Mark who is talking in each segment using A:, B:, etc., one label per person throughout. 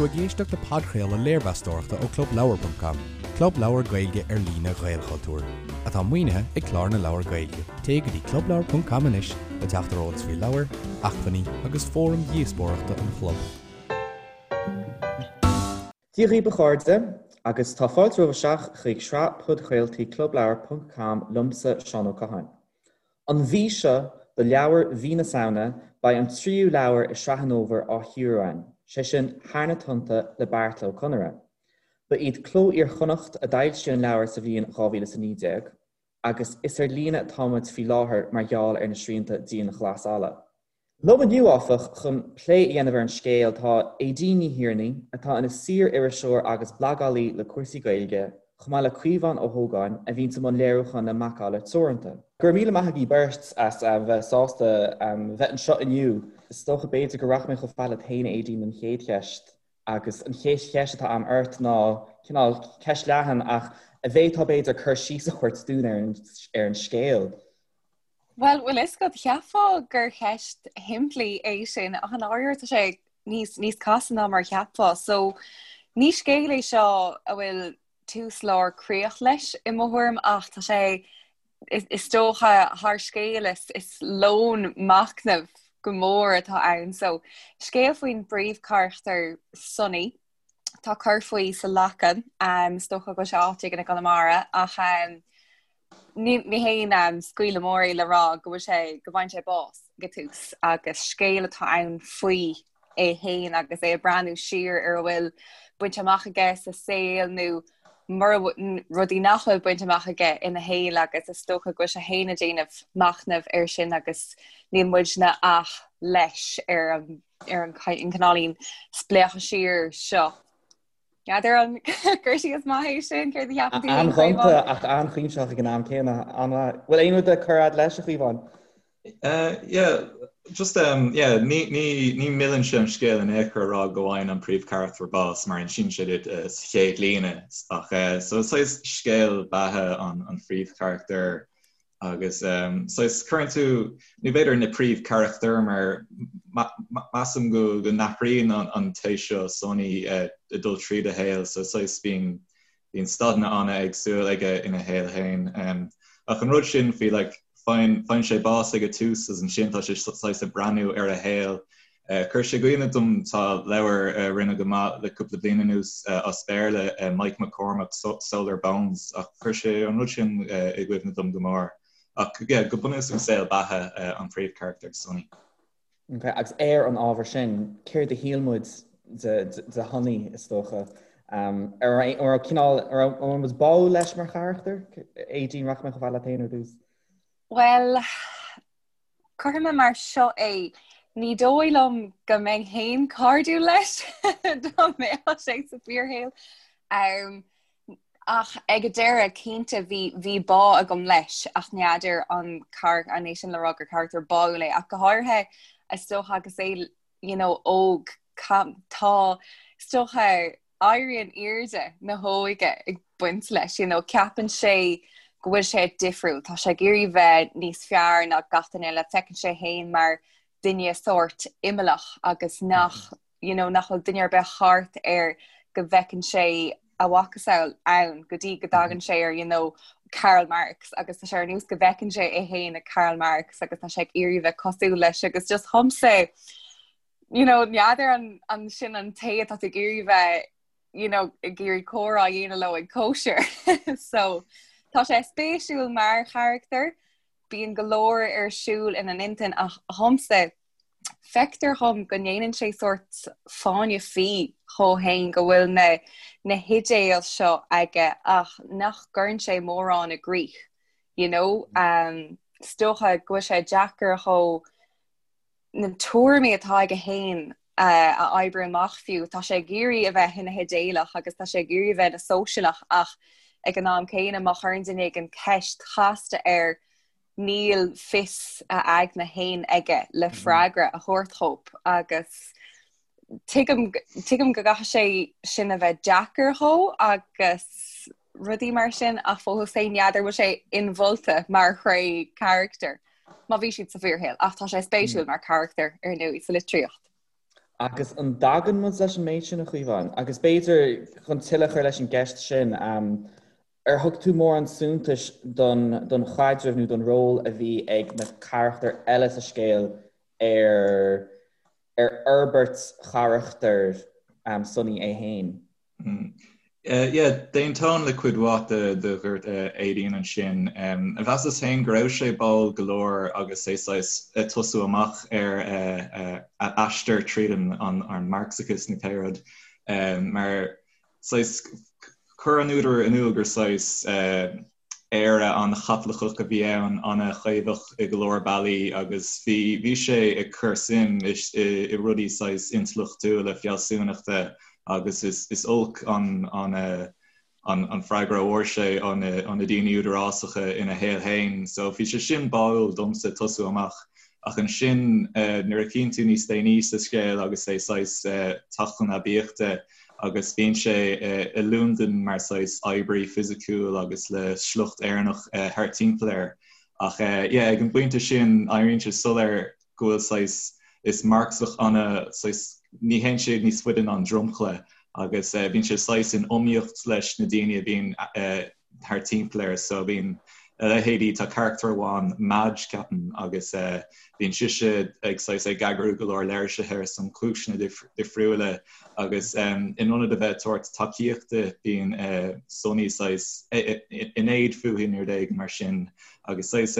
A: tú ag éisteacht le podchraoladh léirmheastóireachta ó ClubLeabhar.com, club leabhar Gaeilge ar líne Ghaelchultúir, atá maoinithe ag Clár na Leabhar Gaeilge. Téigh go dtí ClubLeabhar.com anois le teacht ar eolas faoi leabhair, acmhainní agus fóraim dhíospóireachta an chlub.
B: Dia dhaoibh a chairde, agus tá fáilte romhaibh isteach chuig sraith podchraoltaí ClubLeabhar.com liomsa, Seán Ó Catháin. An mhí seo, do leabhar mhí na Samhna, beidh an tríú leabhar i sraith an fhómhair á chíoradh againn, sé sin Thar na Tonnta le Beairtle Ó Conaire. Ba iad Cló Iar-Chonnacht a d'fhoilsigh an leabhar sa bhliain 2019, agus is ar líne atá muid faoi láthair mar gheall ar na srianta dianghlasála. Liom inniu, áfach, chun plé a dhéanamh ar an scéal tá Aedín Ní Thiarnaigh, atá ina saor-iriseoir agus blagálaí le cúrsaí Gaeilge, chomh maith le Caomhán Ó hÓgáin, a bhíonns i mbun léiriúcháin le Macalla Teoranta. Go raibh míle maith agaibh beirt as bheith sásta bheith anseo inniu. Is dócha, b'fhéidir, go rachaidh mé chomh fada leat féin, Aedín, don chéad cheist. Agus an chéad cheist atá agam ort ná cineál ceist leathan ach an bhféadfá b'fhéidir cur síos a thabhairt dúinn ar an scéal.
C: Bhuel, bhfuil fhios agat, cheapfá gur cheist shimplí é sin, ach i ndáiríre tá sé níos, níos casta ná mar a cheapfá. So, ní scéal é seo a bhfuil tús, lár, críoch leis i mo thuairim, ach tá sé, is, is dócha, thar scéal, is, is lón machnaimh go mór atá ann. So, scéal faoin bpríomhcharachtar Sonny, tá cur faoi sa Leacain, um, is dócha go bhfuil sé áit éigin i gConamara, ach um, Ní haon scaoileadh mór é le rá go bhfuil sé, go bhfaigheann sé bás ag an tús agus scéal atá ann faoi é féin agus é ag breathnú siar ar a bhfuil bainte amach aige sa saol nó mura rudaí nach bhfuil bainte amach aige ina shaol agus is dócha go bhfuil sé féin ag déanamh machnaimh air sin agus níl muidne ach leis ar an ar an cineáilín spléachadh siar seo. N'fheadar an cur síos maith é sin, céard a cheapann tú féin,
B: An-ghonta
C: Caomhán?
B: ach an-chuimsitheach ag an am céanna. An-mhaith. Bhfuil aon rud le cur fhad leis, a Chaomháin?
D: Yeah, just um, yeah, ní, ní, ní mhilleann sé an scéal in aon chor a rá go bhfaigheann an príomhcharachtar bás mar insíonn sé duit uh, sa chéad líne ach uh, so saghas scéal beatha an, an phríomhcharachtair Agus saghas cuireann tú, nó b'fhéidir na príomhcharachtair mar measaim go go n-athraíonn an té seo Sonny ag dul tríd a shaol so saghas bíonn bíonn staideanna an-éagsúil aige ina shaol féin. Ach an rud sin faoi like faigheann faigheann sé bás ag a tús agus ansin tá sé saghas ag breathnú ar a shaol Chuir sé i gcuimhne dom, tá leabhar a rinne go maith le cúpla bliain anuas as Béarla, Mike McCormack, Solar Bones, ach chuir sé an rud sin i gcuimhne dom go mór. Ach yeah, go bunúsach saol beatha an phríomhcharachtair, Sonny.
B: Ok, agus ar an ábhar sin, céard a shíl muid de de Shonny, is dócha? Um, ar raibh cineál, ar raibh muid báúil leis mar charachtar? Aedín, rachaidh mé chomh fada leat féin ar dtús.
C: Bhuel, Cuirfidh mé mar seo é, ní dóigh liom go mbeinn féin cairdiúil leis dá mbeadh sé sa bhfíorshaol. Um, ach ag an deireadh, cinnte, bhí, bhí bá agam leis ach n'fheadar an car an é sin le rá gur carachtar báúil é ach go háirithe is dócha agus é you know, óg tá is dócha éirí in airde na hóige ag baint leis, you know, ceapann sé go bhfuil sé difriúil, tá sé ag iarraidh bheith níos fearr ná gach duine eile, feiceann sé féin mar duine sórt imeallach agus nach, you know, nach bhfuil duine ar bith thart air go bhfeiceann sé a mhacasamhail ann go dtí go dtagann sé ar, you know, Karl Marx agus tá sé ar nós go bhfeiceann sé é féin i Karl Marx agus tá sé ag iarraidh bheith cosúil leis agus just dhomsa you know, n'fheadar an, an sin an té atá tú ag iarraidh bheith, you know, ag iarraidh comhrá a dhéanamh leo ag cóisir. so tá sé spéisiúil mar charachtar, bíonn go leor ar siúl ina intinn ach dhomsa feictear dhom go ndéanann sé sórt fáinne fí dhó féin go bhfuil na, na hidéil seo aige ach nach gcuireann sé mórán i gcrích, you know, um, is dócha go bhfuil sé deacair dhó na tuairimí atá aige féin a oibriú amach fiú. Tá sé ag iarraidh a bheith ina hidéalach agus tá sé ag iarraidh a bheith ina sóisialach ach ag an am céanna má chuireann duine éigin ceist chasta air níl fios a aigne féin aige le freagra a thabhairt dhóibh agus tuigim tuigim go gcaithfidh sé sin a bheith deacair dhó agus rudaí mar sin ach fós féin n'fheadar bhfuil sé inmholta mar thréith charachtair má bhí siad sa bhfíorshaol ach tá sé spéisiúil mar charachtar ar ndóigh sa litríocht.
B: Agus an dtagann muid leis an méid sin, a Chaomháin? Agus b'fhéidir, chun tuilleadh a chur leis an gceist sin, ar thug tú mórán suntais don don chaidreamh nó don ról a bhí ag na carachtair eile sa scéal ar ar fhorbairt charachtar Sonny é féin?
D: Yeah, d'aontóinn le cuid mhaith de de dúirt Aedín ansin. Mheasas féin go raibh sé báúil go leor agus é saghas ag tosú amach ar a aistear tríd an an Marxachas nó pé rud mar saghas chuir an údar in iúl gur saghas Éire an-Chaitliceach a bhí ann, an-chaomhach i go leor bealaí agus bhí bhí sé ag cur suim i i rudaí saghas intleachtúla, fealsúnachta agus is is olc an an an an freagra a fuair sé ó na ó na daoine údarásacha ina shaol féin. So bhí sé sin báúil domsa tosú amach ach ansin nuair a chíonn tú níos déanaí sa scéal agus é saghas teacht chun aibíochta, agus bíonn sé i Londain mar saghas oibrí fisiciúil agus le sliocht Éireannach thart timpeall air. Ach yeah, ag an bpointe sin éiríonn sé soiléir go bhfuil saghas, is Marxach ana saghas, ní théann sé níos faide ná an dromchla agus bíonn sé saghas in iomaíocht leis na daoine a bhíonn thart timpeall air so bíonn a leithéidí, tá carachtar amháin, Madge ceapaim, agus bíonn sise ag saghas ag eagrú go leor léirsithe ar son cúiseanna difriúla agus in ionad a bheith ag tabhairt tacaíochta bíonn Sonny saghas in éad fúithi nó rud éigin mar sin agus saghas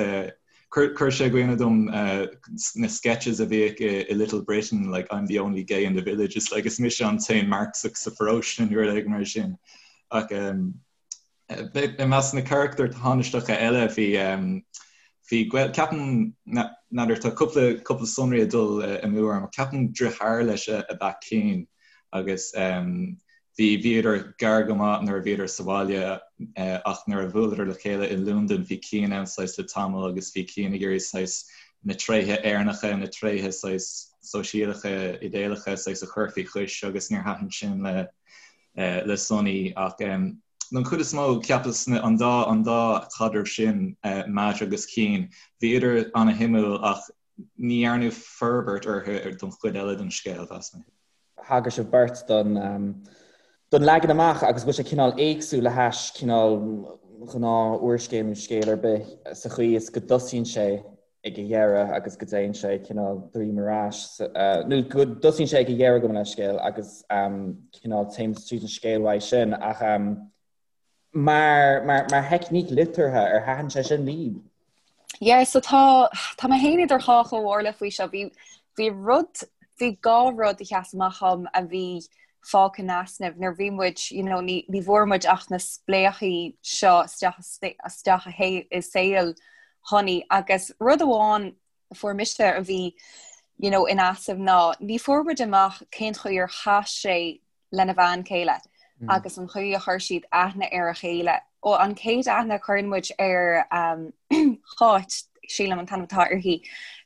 D: Chuir sé i gcuimhne dom na sketches a bhíodh i Little Britain, like I'm the only gay in the village, it's like is mise an t-aon Marxach sa pharóiste nó rud éigin mar sin. Ach I measc na carachtair thánaisteacha eile bhí bhí gaol ceapaim n'fheadar tá cúpla cúpla sonraí ag dul amú orm ach ceapaim deartháir leis ab ea Cian agus bhí bhíodar gar go maith nuair a bhíodar sa bhaile ach nuair a bhuaileadar le chéile i Londain bhí Cian ann saghas le tamall agus bhí Cian ag iarraidh saghas na tréithe Éireannacha na tréithe saghas sóisialacha idéalacha saghas a chur faoi chois agus níor thaitin sin le le Sonny ach don chuid is mó cheapas an dá an dá chaidreamh sin, Madge agus Cian, bhíodar ana-shuimiúil ach ní dhearnadh forbairt orthu don chuid eile den scéal, mheas mé.
B: Thagair sibh beirt don don leagan amach agus go bhfuil sé cineál éagsúil le hais cineál gnáth úrscéal nó scéal ar bith sa chaoi is go dtosaíonn sé ag a dheireadh agus go dtéann sé cineál droim ar ais, nó go dtosaíonn sé ag a dheireadh gabh mo leithscéal agus cineál téann tríd an scéal uaidh sin ach mar, mar, mar theicníc liteartha ar thaitin sé sin libh?
C: Yeah, so tá, tá mé féin idir dhá chomhairle faoi seo. Bhí, bhí rud, bhí dhá rud a sheas amach dhom a bhí fágtha in easnamh nuair bhí muid, you know, ní, ní bhfuair muid ach na spléachaí seo isteach, isteach i saol Shonny agus rud amháin a fuair mise a bhí you know, in easnamh ná ní fuair muid amach cén chaoi ar chas sé lena bhean chéile mm. agus an chaoi a chuir siad aithne ar a chéile. Ó an chéad aithne a chuireann muid ar um, Cháit sílim an t-ainm atá uirthi.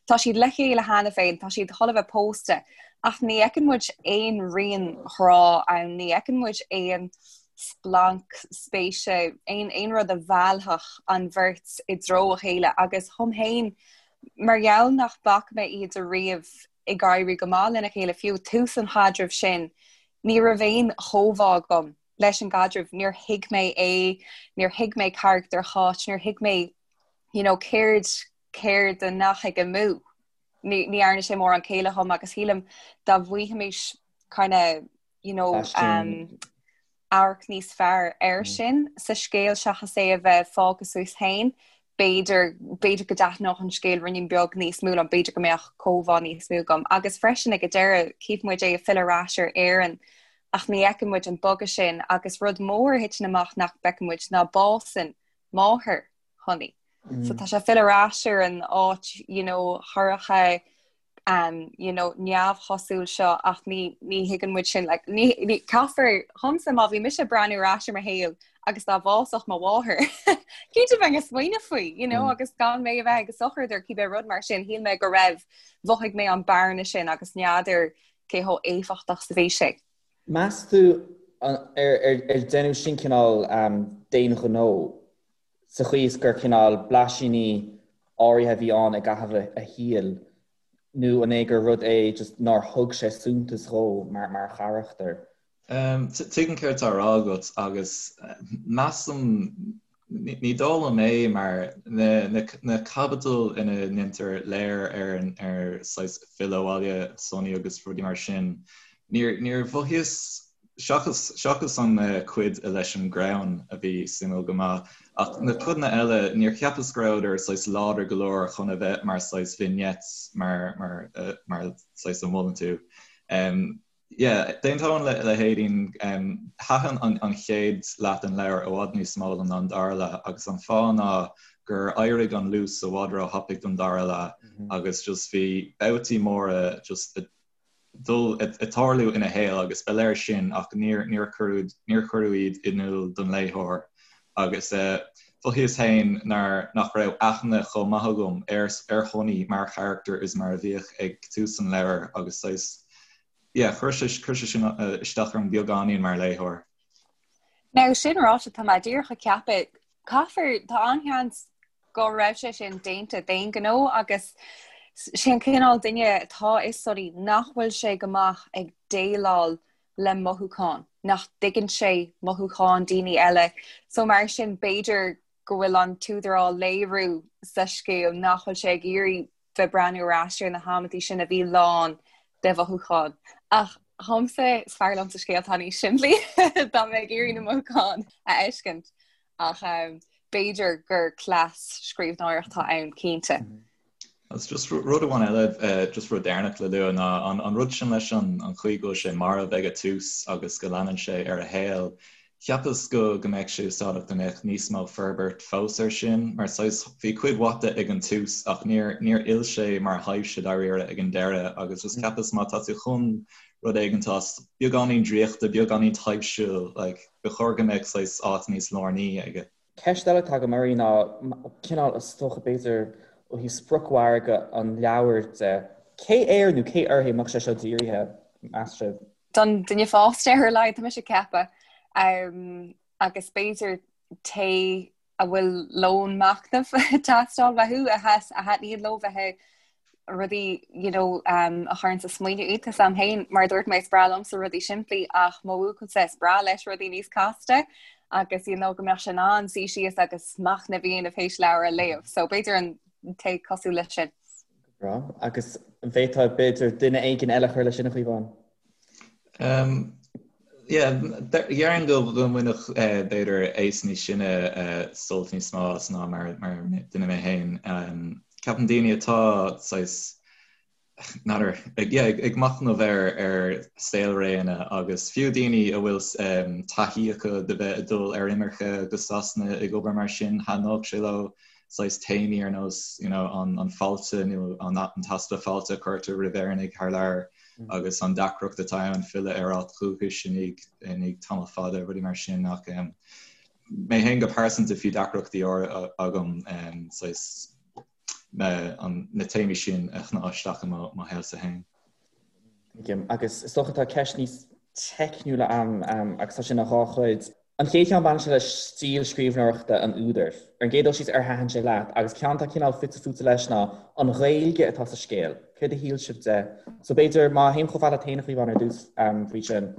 C: Tá siad le chéile cheana féin, tá siad chun a bheith pósta, ach ní fheiceann muid aon rian ghrá ann, ní fheiceann muid aon splanc spéise, aon aon rud a mheallfadh an bheirt i dtreo a chéile agus dhom féin mar gheall nach bhfaca mé iad ariamh ag éirí go maith lena chéile fiú tús an chaidrimh sin ní raibh aon chomhbhá agam leis an gcaidreamh, níor thuig mé é, níor thuig mé carachtar Cháit, níor thuig mé you know, céard céard a ndeachaigh amú. Ní ní dhearna sé mórán céille dhom agus shílim dá bhfaighfimis kind of you know, um, amharc níos fearr air mm. sin sa scéal seachas é a bheith fágtha suas féin, b'fhéidir b'fhéidir go dtaitneodh an scéal ruainnín beag níos mó liom, b'fhéidir go mbeadh comhbhá níos mó agam. Agus freisin ag an deireadh cífidh muid é ag filleadh ar ais ar Éirinn ach ní fheiceann muid an bogadh sin agus rud mór a thiteann amach nach bhfeiceann muid ná básann máthair Shonny. So mm. tá sé ag filleadh ar ais ar an áit you know, shorcha um, you know, neamhchosúil seo ach ní, ní thuigeann muid sin like, ní, ní, caithfear dhomsa má bhí mise ag breathnú ar ais ar mo shaol agus dá bhásódh mo mháthair cinnte bheinn ag smaoineamh faoi you know, mm. agus gan mé a bheith ag sochraid ar cibé rud mar sin shíl mé go raibh mhothaigh mé an bearna sin agus n'fheadar cé chomh éifeachtach is a bhí sé.
B: Meas tú ar, ar, ar deineadh sin cineál um, d'aon ghnó sa chaoi is gur cineál blaisíní áirithe a bhí ann i gcaitheamh a shaoil? Nó an é gur rud é just nár thug sé suntas dhó mar mar charachtar?
D: Tuigim céard atá á rá agat agus measaim, ní dóigh liom é mar na caibidil ina ndéantar léir ar ar saghas filleadh abhaile Sonny agus rudaí mar sin, níor níor mhothaíos Seachas, seachas an cuid leis an gcrann a bhí suimiúil go maith, ach na codanna eile, níor cheapas go rabhadar saghas láidir go leor chun a bheith mar saghas vignettes, mar, mar, mar saghas a mholann tú. Yeah, d'aontóinn le, le hAedín, thaitin an, an chéad leath den leabhar i bhfad níos mó liom ná an dara leath, agus an fáth ná gur éirigh an luas i bhfad róthapaidh don dara leath, agus just bhí babhtaí móra just dul ag tarlú ina shaol agus ba léir sin ach níor níor cuireadh níor cuireadh iad in iúl don léitheoir agus mhothaíos féin nár nach raibh aithne chomh maith agam ar ar Shonny mar charachtar is mar a bhíodh ag tús an leabhair agus saghas yeah chuir sé chuir sé sin isteach orm beagáinín mar léitheoir.
C: Now sin ráite tá mé díreach ag ceapadh caithfear tá an-sheans go raibh sé sin déanta d'aon ghnó agus sé an cineál duine atá i Sonny nach bhfuil sé go maith ag déileáil le mothúcháin, nach dtuigeann sé mothúcháin daoine eile. So mar sin b'fhéidir go bhfuil an t-údar á léiriú sa scéal nach bhfuil sé ag iarraidh bheith breathnú ar ais ar na hamantaí sin a bhí lán de mhothúcháin. Ach dhomsa is fearr liomsa scéalta níos simplí dá mbeinn ag iarraidh na mothúcháin a fheiscint. Ach b'fhéidir gur cleas scríbhneoireachta atá ann, cinnte.
D: Agus just rud amháin eile, just rud deireanach le lua ná an rud sin leis an chaoi go bhfuil sé marbh ag an tús agus go leanann sé ar a shaol. Cheapas go go mbeadh sé úsáideach dá mbeadh níos mó forbairt fós air sin, mar saghas bhí cuid mhaith de ag an tús ach níor níor fhill sé mar thaibhse dáiríre ag an deireadh agus just cheapas má tá tú chun rud éigin atá beagáinín draíochta, beagáinín taibhsiúil, like, ba chóir go mbeadh saghas áit níos lárnaí aige.
B: Ceist eile atá agam oraibh ná cineál is dócha b'fhéidir ó thaobh spriocmhargadh an leabhair de, cé air nó cé uirthi a mbeadh sé seo dírithe, meas sibh?
C: Don duine fásta ar a laghad, tá mise ag ceapadh. Agus b'fhéidir té a bhfuil lón machnaimh ag teastáil uathu, a thaitníonn leo bheith ag rudaí you know, um, a chuireann ag smaoineamh iad. Tá a fhios a'm féin, mar a dúirt mé, is breá liomsa rudaí simplí ach mo bhuachaillse is breá leis rudaí níos casta agus you know, go mbeadh sé in ann suí síos agus machnamh a dhéanamh théis leabhar a léamh. So b'fhéidir an té cosúil leis sin.
B: Breá. Agus an bhféadfá b'fhéidir duine éigin eile a chur leis sin a Chaomháin?
D: Um, yeah, déarfainn go go mbainfeadh eh, b'fhéidir aos níos sine eh, sult níos mó as ná mar mar duine mé féin. Um, ceapaim daoine atá saghas n'fheadar, ag, yeah, ag, ag machnamh ar ar saolréanna agus fiú daoine a bhfuil um, taithí acu de bheith ag dul ar imirce go Sasana ag obair mar sin, thaitneodh sé leo saghas téamaí ar nós you know, an, an fáilte nó an, an t-easpa fáilte a chuirtear roimh Éireannaigh thar lear agus an deacracht atá ann filleadh ar áit dhúchais i ndiaidh, i ndiaidh tamall fada, rudaí mar sin ach um, mé féin go pearsanta bhí deacrachtaí agam um, saghas na, an, na téamaí sin a shná isteach i mo, mo shaolsa féin.
B: Tuigim. Agus is dócha tá ceist níos teicniúla a'm agus tá sin ina dhá chuid. An chéad cheann baineann sé le stíl scríbhneoireachta an údair. Ar an gcéad dul síos ar thaitin sé leat? Agus ceann atá cineál fite fuaite leis ná an Ghaeilge atá sa scéal. Céard a shíl sibh de? So b'fhéidir má théim chomh fada leat féin a Chaomháin ar dtús faoi sin.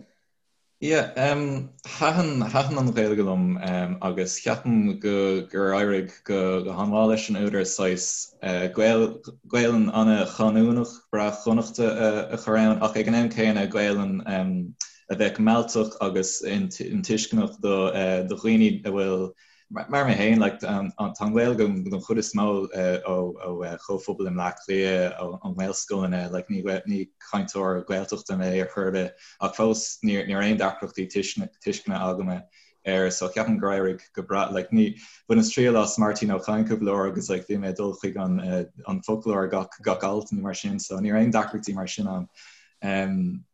D: Yeah, um, thaitin, thaitin an Ghaeilge liom um, agus ceapaim go, gur éirigh go, go han-mhaith leis an údar saghas uh, Gael, Gaelainn an-chanúnach, breá Chonnachta a, a chur ann, ach ag an am céanna Gaelainn um, a bheadh mealltach agus intuisceanach do, uh, do dhaoine a bhfuil Mar mé féin, like, tá an Ghaeilge don chuid is mó ó chomhphobal i mBleá Cliath, ó nGaelscoileanna, like, ní ní cainteoir Gaeltachta mé ar chor ar bith, ach fós ní ní raibh aon deacrachtaí tuisceana agam air, so ceapaim gur éirigh go breá, like, ní, bhaineas triail as Máirtín Ó Cadhain cúpla uair agus like, bhí mé ag dul chuig an an foclóir gach gach alt nó mar sin, so ní raibh aon deacrachtaí mar sin ann. Um,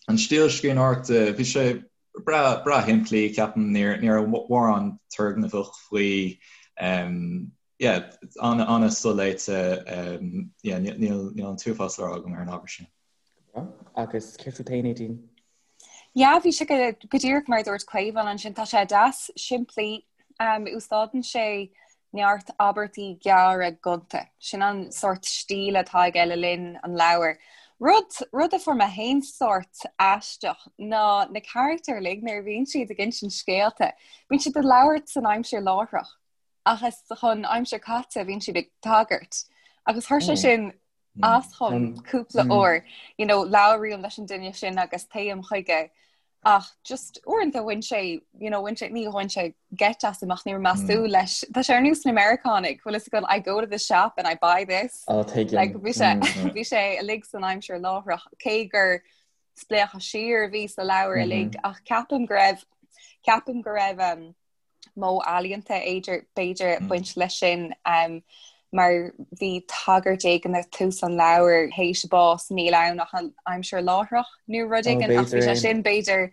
D: an stíl scríbhneoireachta, bhí sé breá breá shimplí, ceapaim, ní ní raibh mórán turgnamhach faoi. Um, yeah, an an-soléite, um, yeah, níl níl an t-uafás le rá agam ar an ábhar sin.
B: Agus céard fút féin, Aedín?
C: Yeah, bhí sé go go díreach mar a dúirt Caomhán ansin, tá sé deas simplí, um, úsáideann sé. Neart abairtí gearra gonta. Sin an sórt stíl atá aige le linn an leabhair. Rud, rud a fuair mé féin sórt aisteach ná na carachtair uilig nuair a bhíonn siad ag insint scéalta, bíonn siad ag labhairt san aimsir láithreach ach is chun aimsir caite a bhíonn siad ag tagairt. Agus chuir sé sin as dhom cúpla uair, you know, labhraím leis an duine sin agus téim chuige ach just uaireanta bhain sé, you know, bhain sé, ní bhain sé geit asam ach ní raibh mé ag súil leis. Tá sé ar nós na Meiriceánaigh, bhfuil fhios agat I go to the shop and I buy this.
B: Oh, tuigim.
C: Like, bhí sé, bhí sé uilig san aimsir láithreach, cé gur spléachadh siar a bhí sa leabhar uilig, ach ceapaim go raibh, ceapaim go raibh, um, modh ealaíonta b'fhéidir ag baint leis sin mar bhí tagairt éigin ag tús an leabhair théis bás níl ann ach an aimsir láithreach nó rud éigin ach bhí sé sin b'fhéidir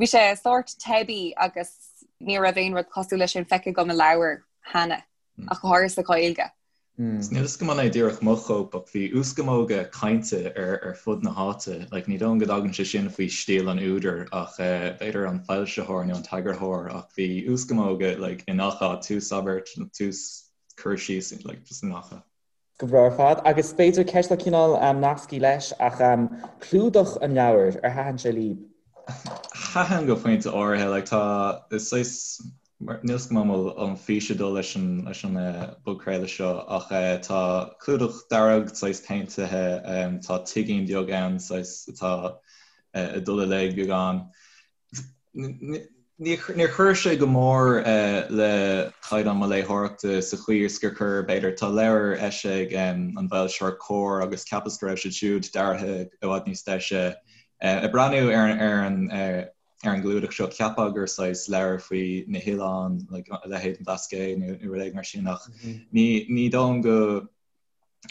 C: bhí sé sórt teibí agus ní raibh aon rud cosúil leis sin feicthe agam i leabhar cheana ach go háirithe sa Ghaeilge.
D: Níl a fhios agam an é díreach mo chóip ach bhí uaschamóga cainte ar ar fud na háite. Like, ní dóigh liom go dtagann sé sin faoi stíl an údair ach b'fhéidir an foilsitheoir nó an t-eagarthóir ach bhí uaschamóga like, i ngach áit, tús abairt, tús cur síos, like, just i ngach áit.
B: Go breá ar fad. Agus b'fhéidir ceist atá cineál nasctha leis ach clúdach an leabhair, ar thaitin sé libh?
D: Thaitin go pointe áirithe, like, tá, is saghas, Níl a fhios agam an bhfuil an fís ag dul leis an leis an bpodchraoladh seo ach tá clúdach dearg saghas péintithe, tá tigín beag ann saghas atá ag dul i léig beagán. Níor chuir sé go mór le caighdeán mo léitheoireachta sa chaoi is gur chuir, b'fhéidir, tá leabhar eisithe ag an bhfoilsitheoir Comhar agus cheapas go raibh siad siúd deartha i bhfad níos deise. Ag breathnú ar an ar an gclúdach seo, cheapfá gur saghas leabhar faoi na hoileáin, like, a leithéid an Blascaod nó rud éigin mar sin ach ní, ní dóigh liom go,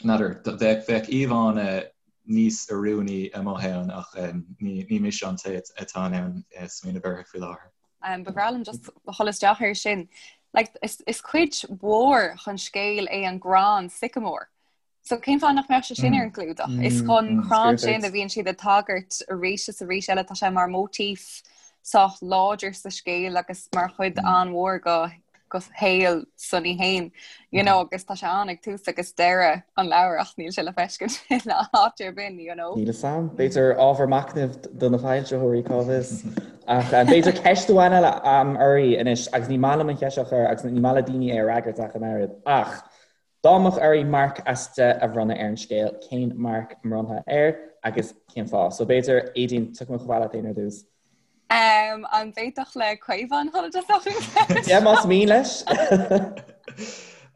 D: n'fheadar, bheadh, bheadh íomhánna níos oiriúnaí amuigh ann ach ní, ní mise an té atá in ann smaoineamh orthu faoi láthair.
C: Um, ba bhreá liom just dhul isteach air sin. Like, is, is cuid mhór den scéal é an gcrann sycamore. So cén fáth nach mbeadh sé sin ar an gclúdach? Is chun crann sin a bhíonn siad ag tagairt arís is arís eile, tá sé mar móitíf sách láidir sa scéal agus mar chuid an-mhór go go shaol Sonny féin, you know, agus tá sé ann ag tús agus deireadh an leabhair ach níl sé le feiscint in áit ar bith, you know.
B: Níl fhios a'm. B'fhéidir ábhar machnaimh do na foilsitheoirí, cá bhfios. Ach b'fhéidir ceist amháin eile a'm oraibh anois agus ní maith liom an cheist seo a chur agus ní maith le daoine é a fhreagairt ach an oiread. Ach Dá mbeadh oraibh marc as 10 a bhronnadh ar an scéal, cén marc a mbronnfá air agus cén fáth? So b'fhéidir, Aedín, tiocfaidh mé chomh fada leat féin ar dtús.
C: Um, an bhféadfadh le Caomhán dhul i dtosach an
B: cheist? Yeah, más mian leis.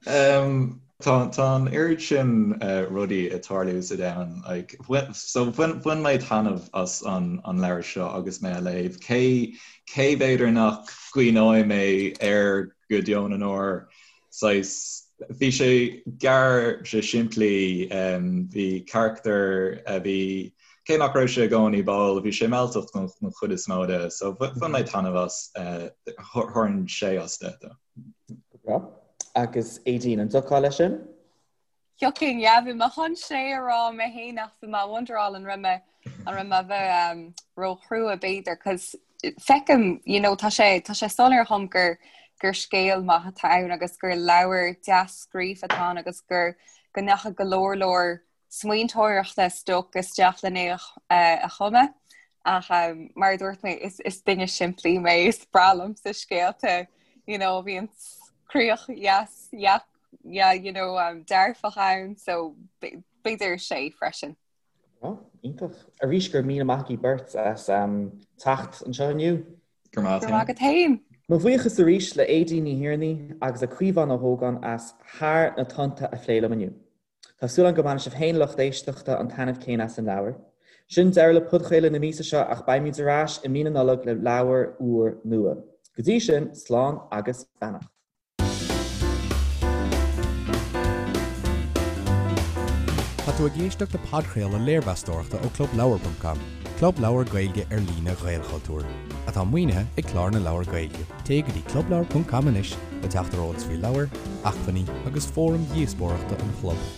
D: um, tá, tá an oiread sin uh, rudaí ag tarlú sa domhan. Like, bhain, so bhain, bhain mé taitneamh as an, an leabhar seo agus mé á léamh. Cé, cé b'fhéidir nach gcuimhneoidh mé air go deo na ndeor saghas, bhí sé gearr, sé simplí, bhí carachtar a bhí, cé nach raibh sé i gcónaí báúil, bhí sé mealltach don chuid is mó de, so bhain mé taitneamh as, thabharfainn sé as 10
B: dó. Go breá. Agus Aedín, an dtiocfá leis sin?
C: Thiocfainn, yeah, bhí mé chun sé a rá mé féin ach bhí mé ag wonderáil an raibh mé an raibh mé a bheith um, róchrua b'fhéidir, cos feicim, you know, tá sé tá sé soiléir dhom gur gur scéal maith atá ann agus gur leabhar deas scríofa atá ann agus gur go ndeachaigh go leor leor smaointeoireachta is dócha isteach lena uh, a chumadh. Ach um, mar a dúirt mé is, is duine simplí mé is breá liomsa scéalta, you know, bhíonn críoch dheas yeah, yeah, you know, um, dearfach ann, so b'fhéidir sé freisin.
B: Oh, iontach. Arís go raibh míle maith agaibh beirt as um, teacht anseo inniu.
D: Go raibh
C: maith agat féin.
B: Mo bhuíochas arís le Aedín Ní Thiarnaigh agus le Caomhán Ó hÓgáin as Thar na Tonnta a phlé liom inniu. Tá súil agam go mbainfidh sibh féin lucht éisteachta an taitneamh céanna as an leabhar. Sin deireadh le podchraoladh na míosa seo ach beimid ar ais i mí na Nollag le leabhar úr nua. Go dtí sin, slán agus beannacht.
A: Tá tú ag éisteacht le podchraoladh léirmheastóireachta ó ClubLeabhar.com, club leabhar Gaeilge ar líne Ghaelchultúir, atá maoinithe ag Clár na Leabhar Gaeilge. Téigh go dtí clubleabhar.com anois le teacht ar eolas faoi leabhair, acmhainní agus fóraim dhíospóireachta an chlub.